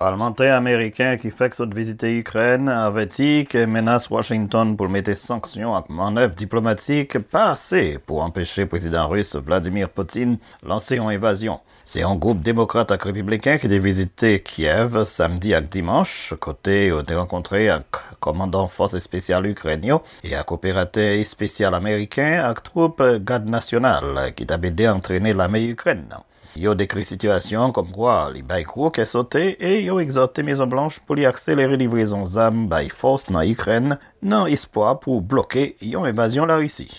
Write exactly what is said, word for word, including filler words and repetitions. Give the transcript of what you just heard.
Palmantè ameriken ki fèk sot vizite Ikrèn avèti ke menas Washington pou l mete sanksyon ak mannèv diplomatik pa ase pou anpeche prezidan ris Vladimir Putin lanse yon envazyon. Se yon gwoup demokrat ak repibliken ki te vizite Kyev samdi ak dimanch, kote yo te rankontre ak kòmandan fòs espesyal Ikrèn yo e ak operatè espesyal ameriken ak twoup Gad Nasyonal ki t ap ede antrene lame Ikrèn nan. Yo dekri sitiyasyon an kòmkwa li bay gwo kè sote e yo egzòte Mezon Blanch pou li akselere livrezon zam bay fòs nan Ikrèn nan espwa pou bloke yon envazyon Larisi.